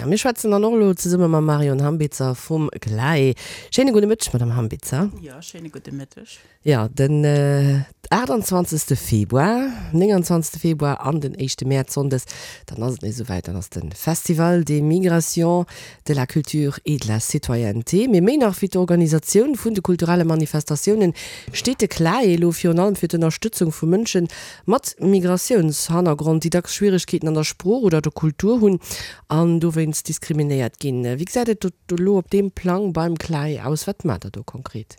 A mir schwätzen dann och elo zesumme mam Marion Hambitzer vum CLAE. Schéine gudde Mëtteg, Madame Hambitzer. Jo, schéine gudde Mëtteg. Jo, den 28. Februar, 29. Februar an den éischte Mäerz, Sonndes, dann ass et nees esouwäit, dann ass de Festival des Migrations, de la Culture et de la Citoyenneté. Mee méi nach wéi d'Organisatioun vun de kulturelle Manifestatiounen steet de CLAE elo virun allem fir d'Ënnerstëtzung vu Mënsche mat Migratiounshannergrond, déi dacks Schwieregkeeten an der Sprooch oder der Kultur hunn an dowéinst diskriminéiert ginn. Wéi gesäit et do elo op deem Plang beim CLAE aus? Wat maacht der do konkret?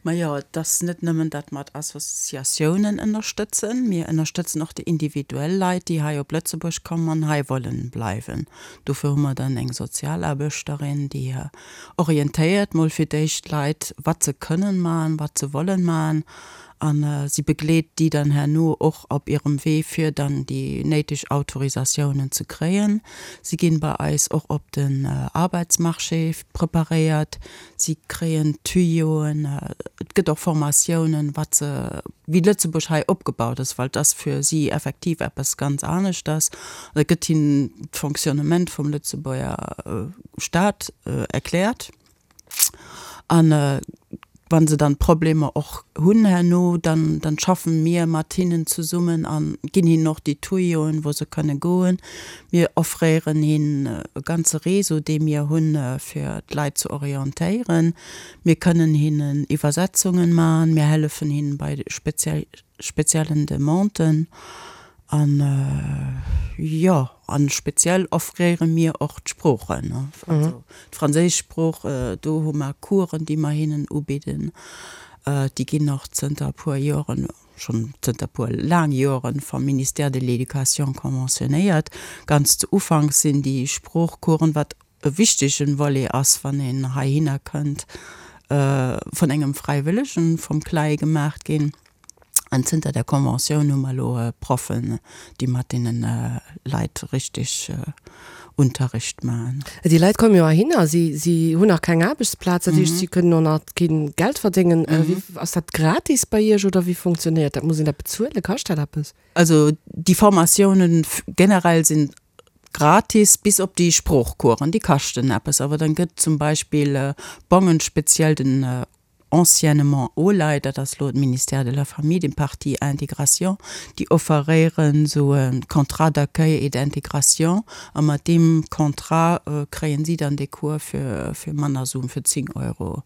Majo, et ass net nëmmen, datt mer d'Associatiounen ënnerstëtzen, mir ënnerstëtzen och déi individuell Leit, déi hei op Lëtzebuerg kommen an hei wollen bleiwen. Dofir hu mer dann eng Sozialaarbechterin, déi orientéiert mol fir d'éischt d'Leit, wat se kënnen maachen, wat se wollen maachen A si begleet déi dann herno och op hirem Wee, fir dann déi néideg Autorisatiounen ze kréien. Si ginn bei eis och op den Arbeitsmarché preparéiert. Si kréien Tuyauen. Et gëtt och Formatiounen, wat se, wéi Lëtzebuerg hei opgebaut ass, well et ass fir si effektiv eppes ganz aneschters. An et gëtt hinnen d'Fonctionnement vum Lëtzebuerger Staat erkläert. An wa se dann Problemer och hunn herno, dann, dann schaffen mir mat hinnen zesummen a ginn hinnen och déi Tuyoen, wou se kënne goen. Mir offréieren hinnen e ganze Réseau, dee mir hunn, fir d'Leit ze orientéieren. Mir kënnen hinnen Iwwersetzungen maachen. Mir hëllefen hinnen bei speziellen Demanden. An jo, an speziell offréiere mir och d'Sproochen, also d'franséisch Sprooch, do hu mer Coursen, déi mer hinnen ubidden. Déi ginn och zënter e puer Joren, schonn zënter e puer laang Joren, vam Ministère de l'Éducation conventionnéiert. Ganz zu Ufank sinn déi Sproochcoursen, wat e wichtegen Volet ass, wann een heihinner kënnt, vun engem Fräiwëllegen vum CLAE gemaacht ginn. An zënter der Conventioun hu mer elo Proffen, déi mat deene Leit richtig Unterricht maachen. Déi Leit komme jo heihinner, si, si hunn nach keng Aarbechtsplaz, dat heescht, si kënnen och nach kee Geld verdéngen. Wéi, ass dat gratis bei Iech oder wéi funktionéiert dat? Muss een dat bezuelen? Kascht dat eppes? Also déi Formatiounen generell sinn gratis, bis op déi Sproochcoursen, déi kaschten eppes. Awer dann gëtt zum Beispill Bongen, speziell den anciennement OLAI, dat ass elo d'Ministère de la Famille, den Partie Intégration, déi offeréieren esou e Contrat d'accueil et d'intégration a mat deem Contrat kréien si dann dee Cours fir fir manner Suen, fir 10 Euro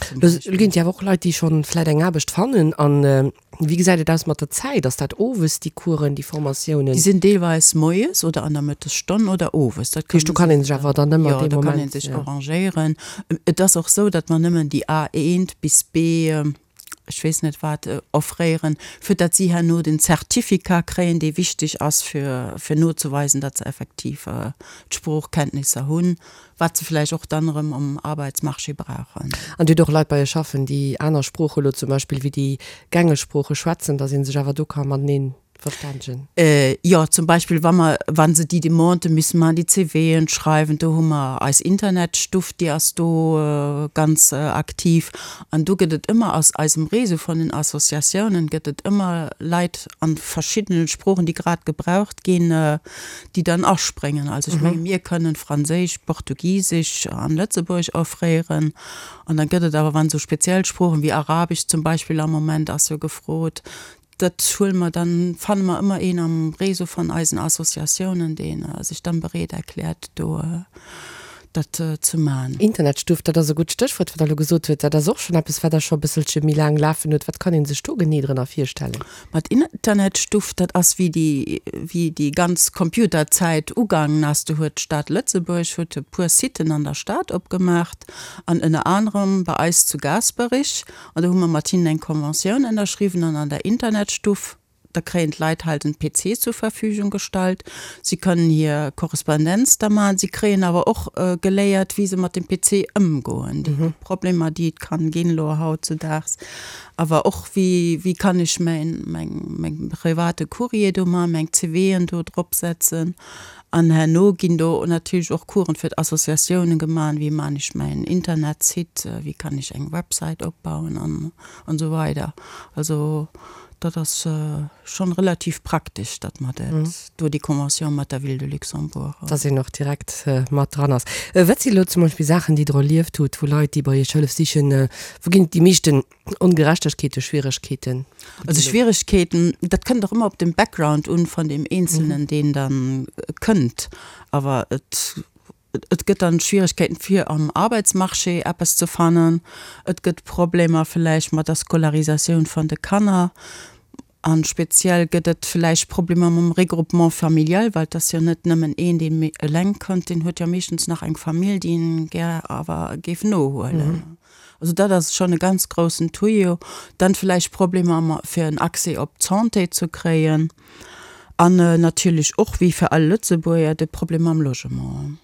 zum Beispill. Elo ginn et jo awer och Leit, déi schonn vläit eng Aarbecht fannen an Wéi gesäit et aus mat der Zäit? Ass dat owes, déi Coursen, déi Formatiounen? Déi sinn deelweis moies oder an der Mëttesstonn oder owes. Dat heescht, do kann ee sech awer dann ëmmer dee Moment. Jo, do kann ee sech arrangéieren. Et ass och esou, datt mer nëmmen déi A1 bis B, ech weess net wat, offréieren, fir datt si herno den Certificat kréien, dee wichteg ass, fir, fir nozeweisen, datt se effektiv d'Sproochkenntnisser hunn. Wat se vläicht och dann erëm um Arbeitsmarché brauchen. An Dir hutt och Leit bei Iech schaffen, déi aner Sprooche lo zum Beispill wéi déi gängeg Sprooche schwätzen, datt ee sech awer do ka matenee verstännegen? Jo, zum Beispill wa mer, wa se déi Demandë müssen maachen, déi CVen schreiwen, do hu mer eis Internetstuff, déi ass do ganz aktiv. An do gëtt et ëmmer aus eisem Réseau vun den Associatiounen gëtt et ëmmer Leit an verschiddenen Sproochen, déi grad gebraucht ginn, déi dann aspréngen. Also ech menge mir kënnen Franséisch, Portugisesch an Lëtzebuergesch offréieren. An da gëtt et awer, wann esou speziell Sproochen wéi Arabesch zum Beispill am Moment ass jo gefrot, dat huele mer dann, fanne mer ëmmer een am Réseau van eisen Associatiounen, dee sech dann bereet erkläert do dat ze man. Internetstuff, dat ass e gutt Stéchwuert, wat Der elo gesot hutt. Dat ass och schonn eppes, wat Der scho e bësselche méi laang lafen hutt. Wat kann ee sech do genee drënner virstellen? Ma d'Internetstuff, dat ass wéi déi, wéi déi ganz Computerzäit ugaangen ass. Do huet d'Stad Lëtzebuerg huet e puer Siten an der Stad opgemaacht an ënner anerem bei eis zu Gaasperich. An do hu mer mat hinnen eng Conventioun ënnerschriwwen an an der Internetstuff, da kréien d'Leit halt en PC zur Verfügung gestallt. Si kënnen hir Korrespondenz da maachen. Si kréien awer och geléiert, wéi se mat dem PC ëmgoen, déi Problemer, déi et kann ginn elo hautzudaags. Awer och, wéi, wéi kann ech mäin, meng, meng private Courrier do maachen, meng CVen do drop setzen. An herno ginn do natierlech och Coursen fir d'Associatiounen gemaach, wéi maan ech mäin Internetsite, wéi kann ech eng Website opbauen an, an esou weider. Also. Dat ass schonn relativ praktesch, datt mer dat do, déi Convention mat der Ville de Luxembourg. Datt een och direkt mat dran ass. Wat si elo zum Beispill Saachen, déi Der erlieft hutt, wou Leit, déi bei Iech Hëllef sichen, wou ginn et déi meeschten Ongerechtegkeeten, Schwieregkeeten? Also Schwieregkeeten, dat kënnt och ëmmer op den Background un vun deem Eenzelnen, deen dann kënnt. Awer et Et gëtt dann Schwierigkeiten fir am Arbeitsmarché eppes ze fannen. Et gëtt Problemer villäicht mat der Scolarisatioun van de Kanner. An speziell gëtt et villäicht Problemer mam Regroupement familial, well et ass jo net nëmmen een deen eleng kënnt, deen huet jo meeschtens nach eng Famill déi en gär awer géif nohuelen. Also dat ass schonn e ganz groussen Tuyau. Dann villäicht Problemer fir en Accès op d'Santé ze kréien. An natierlech och, wéi fir all Lëtzebuerger, de Problem mam Logement.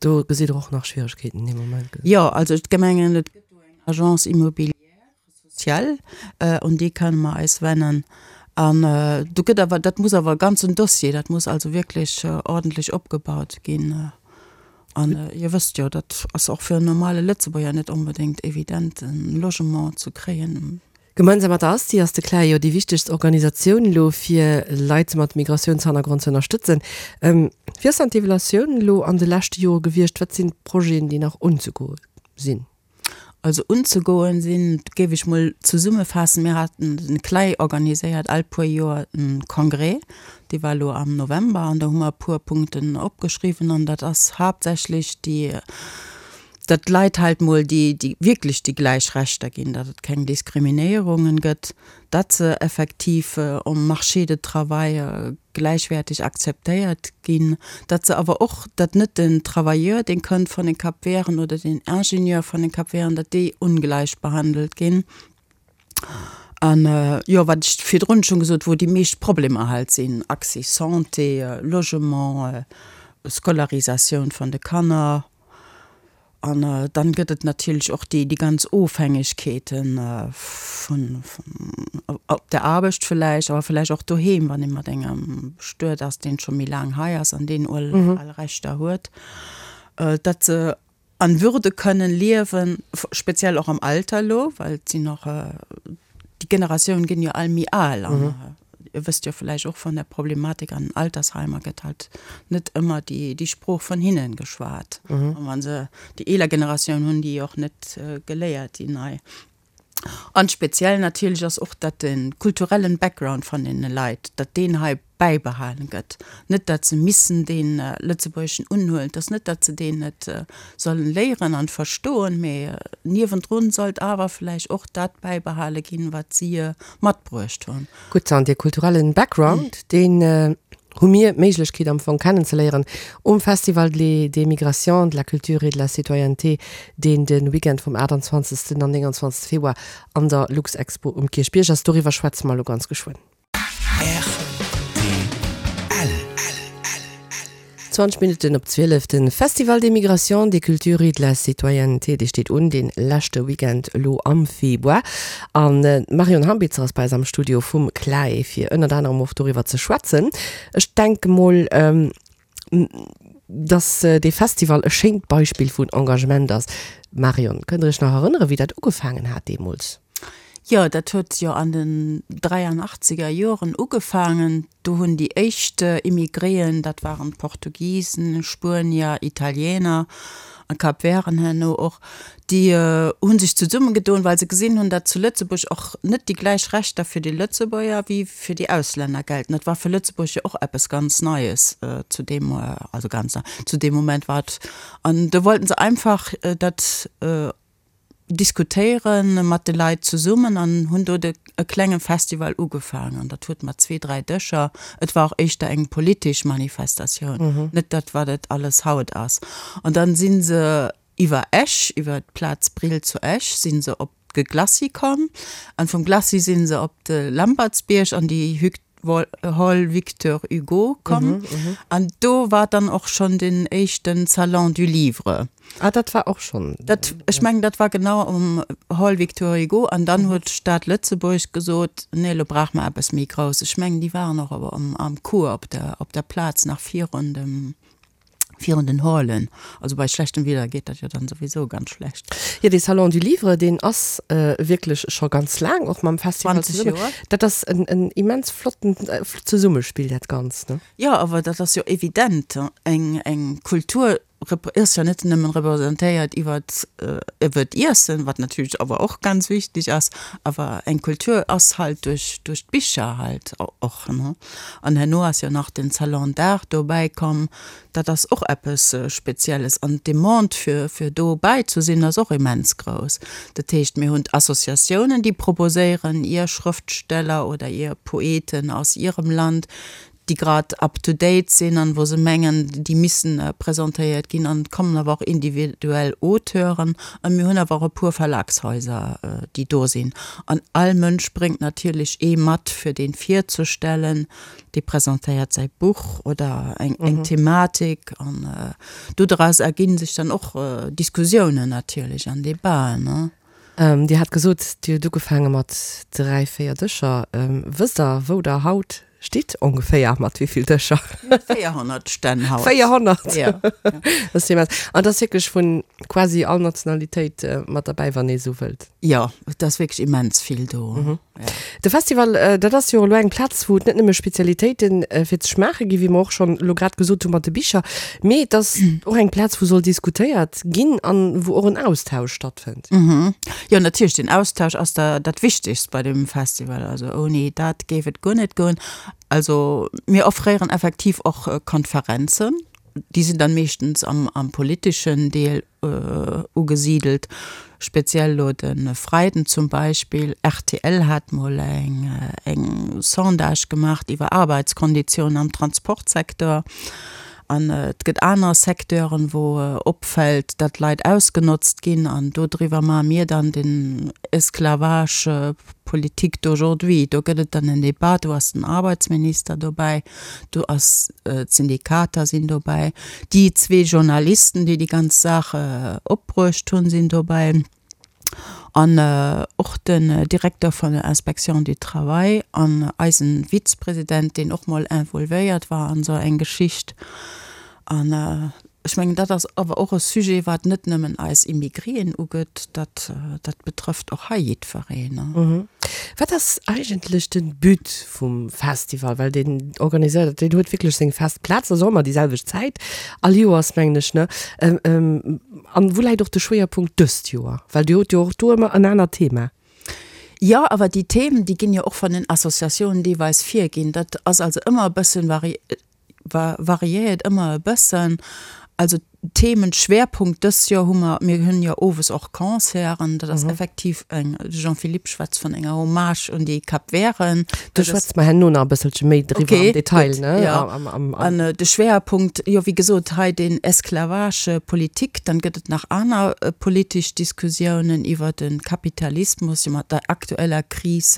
Do gesitt Der och nach Schwieregkeeten dee Moment? Jo, also d'Gemengen, et gëtt do eng Agence immobilière sociale, un déi kënne mer eis wennen. An do gëtt awer, dat muss awer e ganzen Dossier, dat muss also wierklech ordentlech opgebaut ginn. An Dir wësst jo, dat ass och fir en normale Lëtzebuerger net onbedéngt evident, e Logement ze kréien. Gemeinsam mat der ASTI ass de CLAE jo déi wichtegst Organisatioun elo fir Leit mat Migratiounshannergrond ze ënnerstëtzen. Wéi ass dann d'Evaluatioun elo an de leschte Jore gewiescht? Wat sinn d'Projeten, déi nach unzegoe sinn? Also unzegoen sinn, géif ech mol zesummefaassen, mir haten, den CLAE organiséiert all puer Joer e Congrès, dee war elo am November an do hu mer e puer Punkten opgeschriwwen an dat ass haaptsächlech déi, datt d'Leit halt mol déi, déi wierklech déi gläich Rechter ginn, datt et keng Diskriminéierungen gëtt, datt se effektiv um Marché de travail gläichwäerteg akzeptéiert ginn, datt se awer och, datt net den Travailleur, deen kënnt vun den Cap-Verten oder den Ingenieur vun den Cap-Verten, datt déi ongläich behandelt ginn. An, jo, wat ech virdrun schonn gesot, wou déi meescht Problemer halt sinn, Accès Santé, Logement, Scolarisatioun vun de Kanner. An dann gëtt et natierlech och déi ganz Ofhängegkeeten vun, op der Aarbecht vläicht, awer vläicht och doheem, wann ee mat engem bestuet ass, deen scho méi laang hei ass an deen all Rechter huet, datt se an Würde kënnen liewen, speziell och am Alter elo, well et sinn och, déi Generatiounen ginn jo all méi al an Dir wësst jo vläicht och vun der Problematik an den Altersheimer gëtt halt net ëmmer déi, déi Sprooch vun hinnen geschwat. An wa se déi eeler Generatioun hunn déi och net geléiert, déi nei. An speziell natierlech ass och, datt de kulturellen Background van deene Leit, datt deen hei bäibehalen gëtt. Net datt se missen dee Lëtzebuergeschen unhuelen, et ass net, datt se deen net sollen léieren an verstoen, mee niewendrun sollt awer vläicht och dat bäibehale ginn, wat si matbruecht hunn. Gutt, an dee kulturellen Background, deen hu mir d'Méiglechkeet am Fong kennenzeléieren um Festival des Migrations, de la Culture et de la Citoyenneté, deen de Weekend vum 28. an 29. Februar an der Luxexpo um Kierchbierg ass. Doriwwer schwätze mer elo ganz geschwënn. Rtl. 20 Minutten op 12, De Festival des Migrations, des Cultures et de la Citoyenneté, dee steet un, dee leschte Weekend elo am Februar. An d'Marion Hambitzer ass bei eis am Studio vum CLAE, fir ënnert anerem och doriwwer ze schwätzen. Ech denke mol, dass dee Festival e schéint Beispill vun Engagement ass. Marion, kënnt Der Iech nach erënneren, wéi dat ugefaangen hat deemools? Jo, dat huet jo an den dräianachtzeger Joren ugefaangen. Do hunn déi éischt Immigréen, dat waren Portugisen, Spuenier, Italiener a Kapverden herno och, déi hu sech zesummegedoen, well se gesinn hunn, datt zu Lëtzebuerg och net déi gläich Rechter fir déi Lëtzebuerger wéi fir déi Auslänner gelten. Dat war fir Lëtzebuerg jo och eppes ganz Neies zu deem, also ganz nei, zu deem Moment war et. An do wollten se einfach dat diskutéiere mat de Leit zesummen an hunn do de e klenge Festival ugefaangen. An dat huet mat zwee, dräi Dëscher, et war och éischter eng politesch Manifestatioun, net dat wat et alles haut ass. An dann si se iwwer Esch, iwwer d'Plaz Brill zu Esch si se op de Glacis komm an vum Glacis si se op de Lampertsbierg an déi Hall Victor Hugo komm. An do war dann och schonn den éischten Salon du Livre. Ah, dat war och schonn. Dat, ech mengen, dat war genau um Hall Victor Hugo. An dann huet d'Stad Lëtzebuerg gesot, nee, elo brauche mer eppes méi Grousses. Ech mengen, déi waren och am Cours op der, op der Plaz nach virun dem. Virun den Hallen. Also bei schlechtem Wieder geet dat jo dann souwisou ganz schlecht. Jo, dee Salon du Livre, deen ass wierklech scho ganz laang och mam Festival 20 zesummen. Joer. Dat ass en, en immens flotten Zesummespill, dat Ganzt, ne? Jo, awer dat ass jo evident. Eng, eng Kultur ass jo net nëmmen representéiert iwwert, iwwert d'Iessen, wat natierlech awer och ganz wichteg ass, awer eng Kultur ass halt duerch, duerch d'Bicher halt och, ne? An herno ass jo nach den Salon d'Art dobäi komm. Dat ass och eppes Spezielles. An d'Demande fir, fir dobäi ze sinn, ass och immens grouss. Dat heescht, mir hunn d'Associatiounen, déi proposéieren, ihr Schrëftsteller oder ihr Poeten aus ihrem Land, déi grad up to date sinn an wou se mengen, déi missen presentéiert ginn. An et kommen awer och individuell Auteuren. A mir hunn awer och e puer Verlagshaiser, déi do sinn. An all Mënsch bréngt natierlech ee mat, fir dee virzestellen. Dee presentéiert säi Buch oder eng, eng Thematik. An dodraus erginn sech dann och Diskussiounen natierlech an Debaten, ne. Dir hat gesot, Dir hutt ugefaange mat 3, 4 Dëscher. Wësst Der, wou Der haut stitt ongeféier, mat wéi vill Dëscher? 400 Stänn haut. 400? Ja. Dat ass immens. An et ass wierklech vu quasi all Nationalitéit mat derbäi, wann ee esou wëllt. Jo, et ass wierklech immens vill do. De Festival, dat ass jo elo eng Plaz, wou et net nëmme Spezialitéite fir ze schmaache ginn, wéi mer och schonn elo grad gesot hu mat de Bicher, mee et ass och eng Plaz, wou soll diskutéiert ginn an wou och en Austausch stattfënnt. Jo, natierlech, den Austausch ass da dat Wichtegst bei dem Festival. Also ouni dat géif et guer net goen. Also mir offréieren effektiv och Konferenzen, déi sinn dann meeschtens am am politeschen Deel ugesidelt, speziell elo de Freiden zum Beispill. Rtl hat mol eng eng Sondage gemaach iwwer Arbeitskonditiounen am Transportsecteur. An et gëtt aner Secteuren, wou opfält, datt Leit ausgenotzt ginn. An dodriwwer maache mir dann den Esclavage politique d'aujourd'hui. Do gëtt et dann en Debat, do ass den Arbeitsminister dobäi. Do ass, d'Syndikater sinn dobäi, déi zwee Journalisten, déi déi ganz Saach opbruecht hunn, sinn dobäi an och den Direkter vun der Inspection du Travail an eisen Vizepresident, deen och mol involvéiert war an esou eng Geschicht. An ech mengen, dat ass awer och e Sujet, wat net nëmmen eis Immigrien ugeet, dat, dat betrëfft och hei jiddwereen. Wat ass eigentlech de But vum Festival? Well deen organiséiert, deen huet wierklech seng fest Plaz, ass och ëmmer déi selwecht Zäit all Joers, mengen ech, ne? An wou läit och de Schwéierpunkt dëst Joer? Well Dir hutt jo och do ëmmer en anert Thema. Jo, awer déi Themen, déi ginn jo och vun den Associatiounen deelweis virginn. Dat ass also ëmmer e bëssen vari Variéiert ëmmer e bëssen. Also Themenschwerpunkt dës Joer hu mer, mir hunn jo owes och Concerten, dat ass effektiv eng, de Jean-Philippe schwätzt vun enger Hommage un déi Capverten. Do schwätze mer herno nach e bësselche méi driwwer am Detail, ne? Jo, an de Schwerpunkt, jo wéi gesot hei den Esclavage politique, dann gëtt et nach aner politesch Diskussiounen iwwer de Kapitalismus, jo mat der aktueller Kris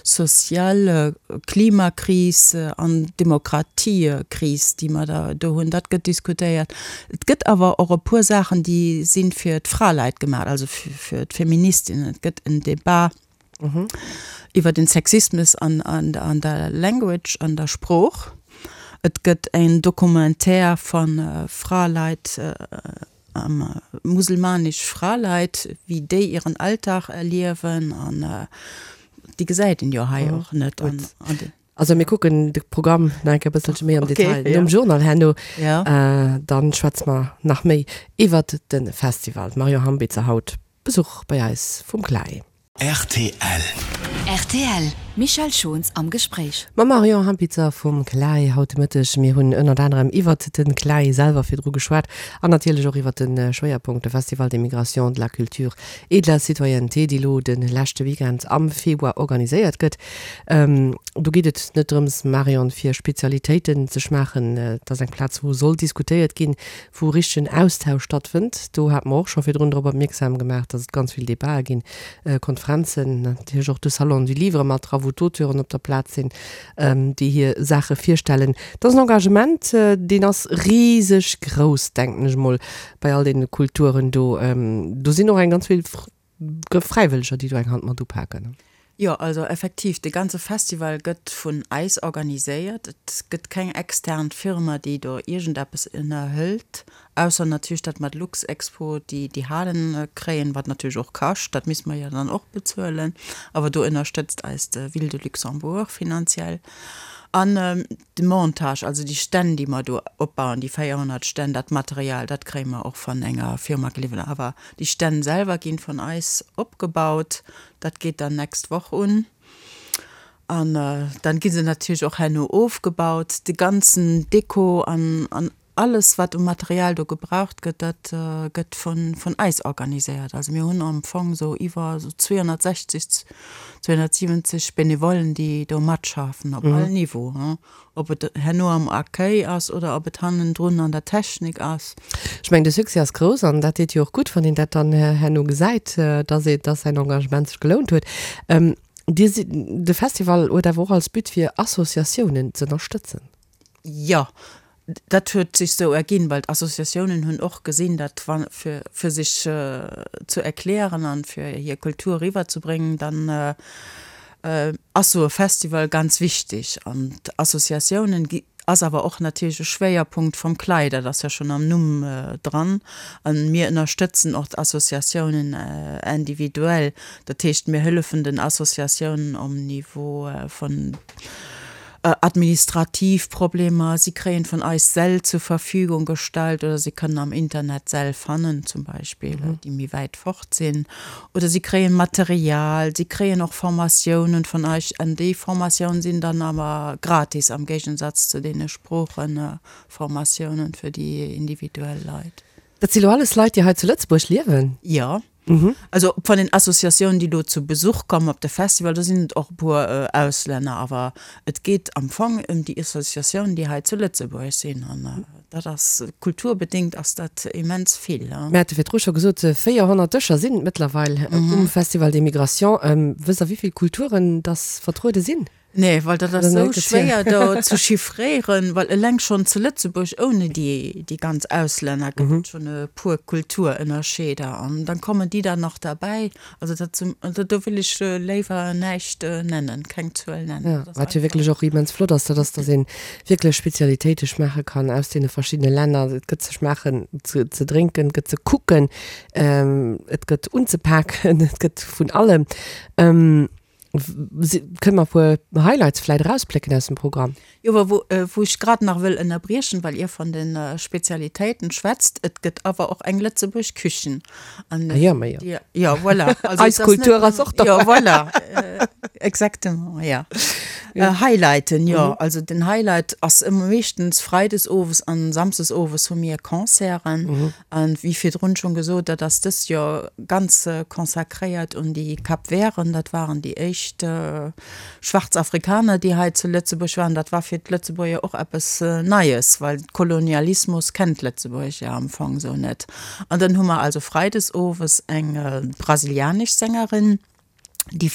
Sozial Klimakris an Demokratiekris, déi mer da do hunn, dat gëtt diskutéiert. Et gëtt awer och e puer Saachen, déi si fir d'Fraleit gemaach, also fir d'Feministinnen. Et gëtt en Debat iwwer den Sexismus an der Language, an der Sprooch. Et gëtt en Documentaire vu Fraleit, Muselmanesch Fraleit, wéi déi ieren Alltag erliewen an déi gesäit een jo hei och net. Also mir kucken de Programm nach eng Kéier e bësselche méi am Detail nom Journal herno. Dann schwätze mer nach méi iwwert de Festival. D'Marion Hambitzer haut Besuch bei eis vum CLAE. Rtl. Rtl, Michèle Schons am Gespréich. Mam Marion Hampitzer vum CLAE haut de Mëtteg. Mir hunn ënnert anerem iwwert de CLAE selwer virdru geschwat an natierlech och iwwert de Schwéierpunkt, de Festival des Migrations, de la Culture et de la Citoyenneté, dee lo de leschte Weekend am Februar organiséiert gëtt. Do geet et net drëms, Marion, fir Spezialitéiten ze schmaachen. Et ass eng Plaz, wou soll diskutéiert ginn, wou richtegen Austausch stattfënnt. Do hate mer och scho virdrun drop opmierksam gemaach, dass et ganz vill Debatë ginn, Konferenzen, natierlech och de Salon du Livre mat dra, wou d'Auteuren op der Plaz sinn, déi hir Saache virstellen. Dat ass en Engagement, deen ass riseg grouss, denken ech emol, bei all deene Kulturen do. Do sinn och eng ganz vill Fräiwëlleger, déi do eng Hand mat upaken. Jo, also effektiv, de ganze Festival gëtt vun eis organiséiert. Et gëtt keng extern Firma, déi do iergendeppes ënnerhëlt, ausser natierlech dat mat Luxexpo, déi déi Halen kréien, wat natierlech och kascht, dat misste mer jo dann och bezuelen. Awer do ënnerstëtzt eis de Ville de Luxembourg finanziell. An de Montage, also déi Stänn, déi mer do opbauen, déi 400 Stänn, dat Material, dat kréie mer och van enger Firma geliwwert. Awer déi Stänn selwer ginn vun eis opgebaut. Dat geet dann nächst Woch un. An dann gi se natierlech och herno ofgebaut. De ganzen Deko an an alles, wat u Material do gebraucht gëtt, dat gëtt vun vun eis organiséiert. Also mir hunn am Fong esou iwwer esou 260, 270 Benevollen, déi do matschaffen op all Niveau, hein. Ob et herno am Accueil ass oder ob et hannendrun an der Technik ass. Ech mengen, de Succès ass grouss an dat deet jo och gutt, wann een dat dann herno gesäit, dass ee, dass säin Engagement sech gelount huet. Dir sidd, de Festival huet awer och als But fir Associatiounen z'ënnerstëtzen. Jo, dat huet sech sou erginn, well d'Associatiounen hunn och gesinn, datt wa fir, fir sech ze erklären an fir hir Kultur eriwwerzebréngen, dann ass sou e Festival ganz wichteg an d'Associatiounen gi ass awer och natierlech e Schwéierpunkt vum CLAE, dat ass jo schonn am Numm dran. A mir ënnerstëtzen och d'Associatiounen individuell, dat heescht mir hëllefen den Associatiounen um Niveau vun administrativ Problemer, si kréien vun eis Säll zur Verfügung gestallt oder si kënnen am Internet Säll fannen zum Beispill, déi méi wäit fort sinn. Oder si kréien Material, si kréien och Formatiounen vun eis an déi Formatiounen sinn dann awer gratis am Géigensatz zu deene Sproocheformatiounen fir déi individuell Leit. Dat si lo alles Leit, déi hei zu Lëtzebuerg liewen? Jo. Also von den Associatiounen, déi do zu Besuch kommen op de Festival, do sinn et och e puer Auslänner, awer et geet am Fong ëm déi Associatiounen, déi hei zu Lëtzebuerg sinn an dat ass kulturbedéngt ass dat immens vill. Mir hate virdru scho gesot, 400 Dëscher sinn et mëttlerweil um Festival des Migrations. Wësst Der, wéi vill Kulturen dass vertruede sinn? Nee, well dat ass esou schwéier do ze chiffréieren, well eleng schonn zu Lëtzebuerg ouni déi déi ganz Auslänner gëtt et schonn e puer Kulturënnerscheeder an dann kommen déi dann nach derbäi. Also dat zum, also do wëll ech léiwer näischt nennen, keng Zuel nennen. Jo, wat jo wierklech och immens flott ass, dat ass, datt ee wierklech Spezialitéite schmaache kann aus deene verschiddene Länner. Et gëtt ze schmaachen, ze ze drénken, et gëtt ze kucken, et gëtt unzepaken, et gëtt vun allem. Kënne mer e puer Highlights vläit erausplécken aus dem Programm? Jo, awer wou, wou ech grad nach wëll ënnerbriechen, well Dir von de Spezialitéiten schwätzt, et gëtt awer och eng Lëtzebuerg Küchen. An Ah jo, ma jo. déi, jo, voilà. Also Eis et ass net Kultur ass och Jo, dobäi. voilà, exactement, ja. Highlighten, jo, also den Highlight ass ëmmer meeschtens freides owes an samsdes owes hu mir Concerten. An wéi virdrun schonn gesot, dat ass dëst Joer ganz consacréiert un déi Kapverden. Dat waren déi éischt schwaarz Afrikaner, déi hei zu Lëtzebuerg waren. Dat war fir d'Lëtzebuerger och eppes Neies, well Kolonialismus kennt Lëtzebuerg jo am Fong esou net. An dann hu mer also freides owes eng brasilianesch Sängerin, déi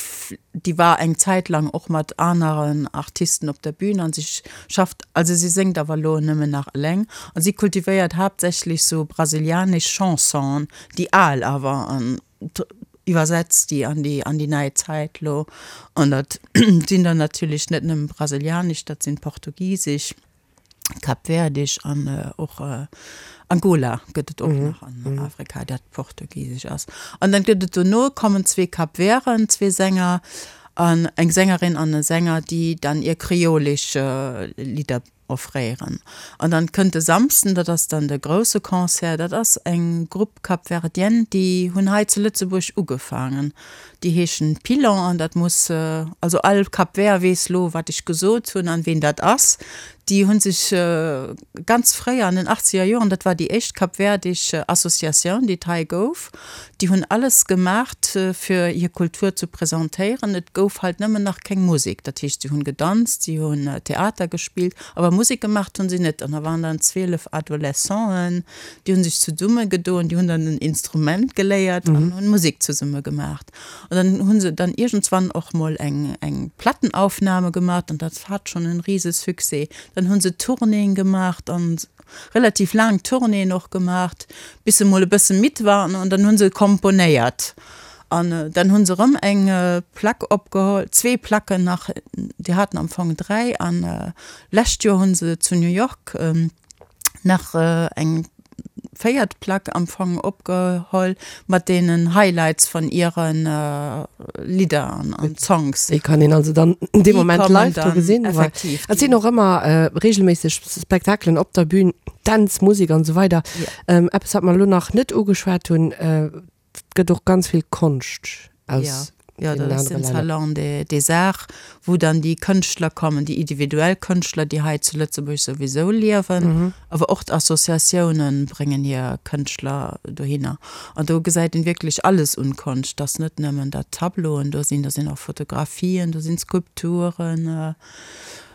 déi war eng Zäit lang och mat aneren Artisten op der Bühn an si schafft, also si séngt awer elo nëmmen nach eleng an si kultivéiert haaptsächlech sou brasilianesch Chansonen, déi al awer an iwwersetzt déi an déi an déi nei Zäit elo an dat sinn dann natierlech net nëmmen brasilianesch, dat sinn portugisesch. Kapverdisch an och Angola gëtt et och nach an Afrika, dat portugisesch ass. An dann gëtt et dono kommen zwee Kapverden, zwee Sänger an eng Sängerin an e Sänger, déi dann ihr kreolesch Lidder offréieren. An dann kënnt de Samsden, dat ass dann de grousse Concert, dat ass eng Grupp Capverdienne, déi hunn hei zu Lëtzebuerg ugefaangen. Déi heeschen Pilon an dat muss, also all Cap Vert weess lo wat ech gesot hunn an ween dat ass. Déi hu sech ganz fréi an den achtzeger Joren, dat war déi éischt kapverdisch Associatioun déi et hei gouf, déi hunn alles gemaacht fir hir Kultur zu presentéieren. Et gouf halt nëmmen nach keng Musek, dat heescht si hunn gedanzt, si hunn Theater gespillt, awer Musek gemaacht hunn si net. An da waren dann 12 Adolescenten, Déi hunn sech zesumme gedoen, déi hunn dann en Instrument geléiert an hunn Musek zesumme gemaacht. An dann hunn se dann iergendswann och mol eng eng Plattenaufnahme gemaacht an dat hat schonn en rise Succès. Dann hunn se Tournéeën gemaacht an relativ laang Tournéeën och gemaacht, bis se mol e bësse midd waren an dann hunn se komponéiert. An dann hu se erëm eng Plack opgeholl, zwee Placken nach, déi haten am Fong 3 an lescht Joer hu se zu New York nach eng véiert Plack am Fong opgeholl mat deenen Highlights von ihren Lidder an Songs. Déi kann een also dann dee Moment live do gesinn. Effektiv. Et sinn och ëmmer regelméisseg Spektakelen op der Bühn, Dänz, Musek an esou weider. Eppes wat mer elo nach net ugeschwat hunn, Et gëtt och ganz vill Konscht aus deenen anere Länner. Jo, dat ass den Salon des Arts, wou dann déi Kënschtler kommen, déi individuell Kënschtler, déi hei zu Lëtzebuerg souwisou liewen, awer och d'Associatiounen bréngen hir Kënschtler dohinner. An do gesäit een wierklech alles un Konscht. Et ass net nëmmen, datt Tableauen do sinn, do sinn och Fotografien, do sinn Skulpturen,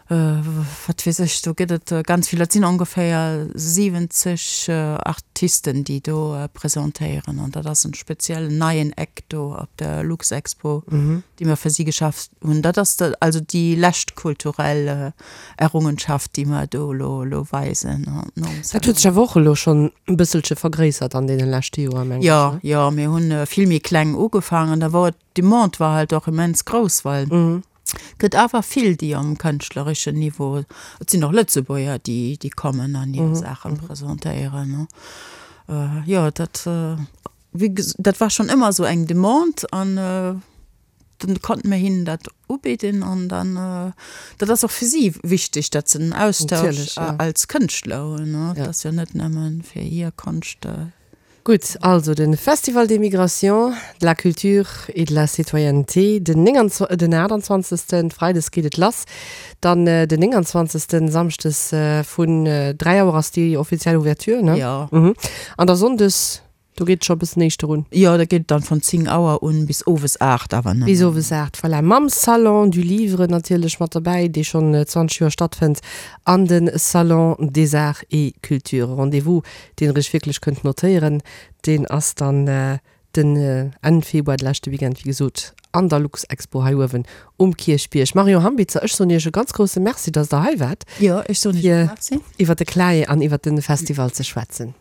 Wat weess ech, do gëtt et ganz vill. Dat sinn ongeféier 70 Artisten, déi do presentéieren. An dat ass en speziellen neien Eck do op der Luxexpo, dee mer fir si geschaf hunn. Dat ass also déi lescht kulturell Errungenschaft, déi mer do elo weisen. Dat huet sech awer och elo schonn e bësselche vergréissert an deene leschte Joer, mengen ech. Jo, jo, mir hu vill méi kleng ugefaangen. Da wor d'Demande war halt och immens grouss, well Gëtt awer vill, déi am kënschtlereschen Niveau, et sinn och Lëtzebuerger, déi, déi kommen an hir Saache presentéieren. Jo, dat, wéi ges-, dat war schonn ëmmer esou eng Demande an dann konnte mir hinnen dat ubidden an dann, dat ass och fir si wichteg, datt se den Austausch als Kënschtler hunn, dat ass jo net nëmme fir hir Konscht. Gutt, also de Festival des Migrations, de la Culture et de la Citoyenneté den 29, den 28. Freides geet et lass, dann den 29. Samschdes vun 3 Auer ass déi offiziell Ouverture, ne? Jo. An da Sonndes, do geet et scho e bëssen éischter un. Jo, da geet et dann vun 10 Auer un bis owes 8 awer nëmmen. Bis owes 8, voilà. Mam Salon du Livre natierlech mat derbäi, dee schonn 20 Joer stattfënnt, an de Salon des Arts et Cultures. Rendez-vous deen der iech wierklech kënnt notéieren, deen ass dann den Enn Februar, de leschte Weekend, wéi gesot, an der Luxexpo hei uewen um Kierchbierg. Marion Hambitzer, ech soen iech e ganz grousse Merci, dass der hei waart, Jo, ech soen iech och Merci. fir iwwer de CLAE an iwwer de Festival ze schwätzen.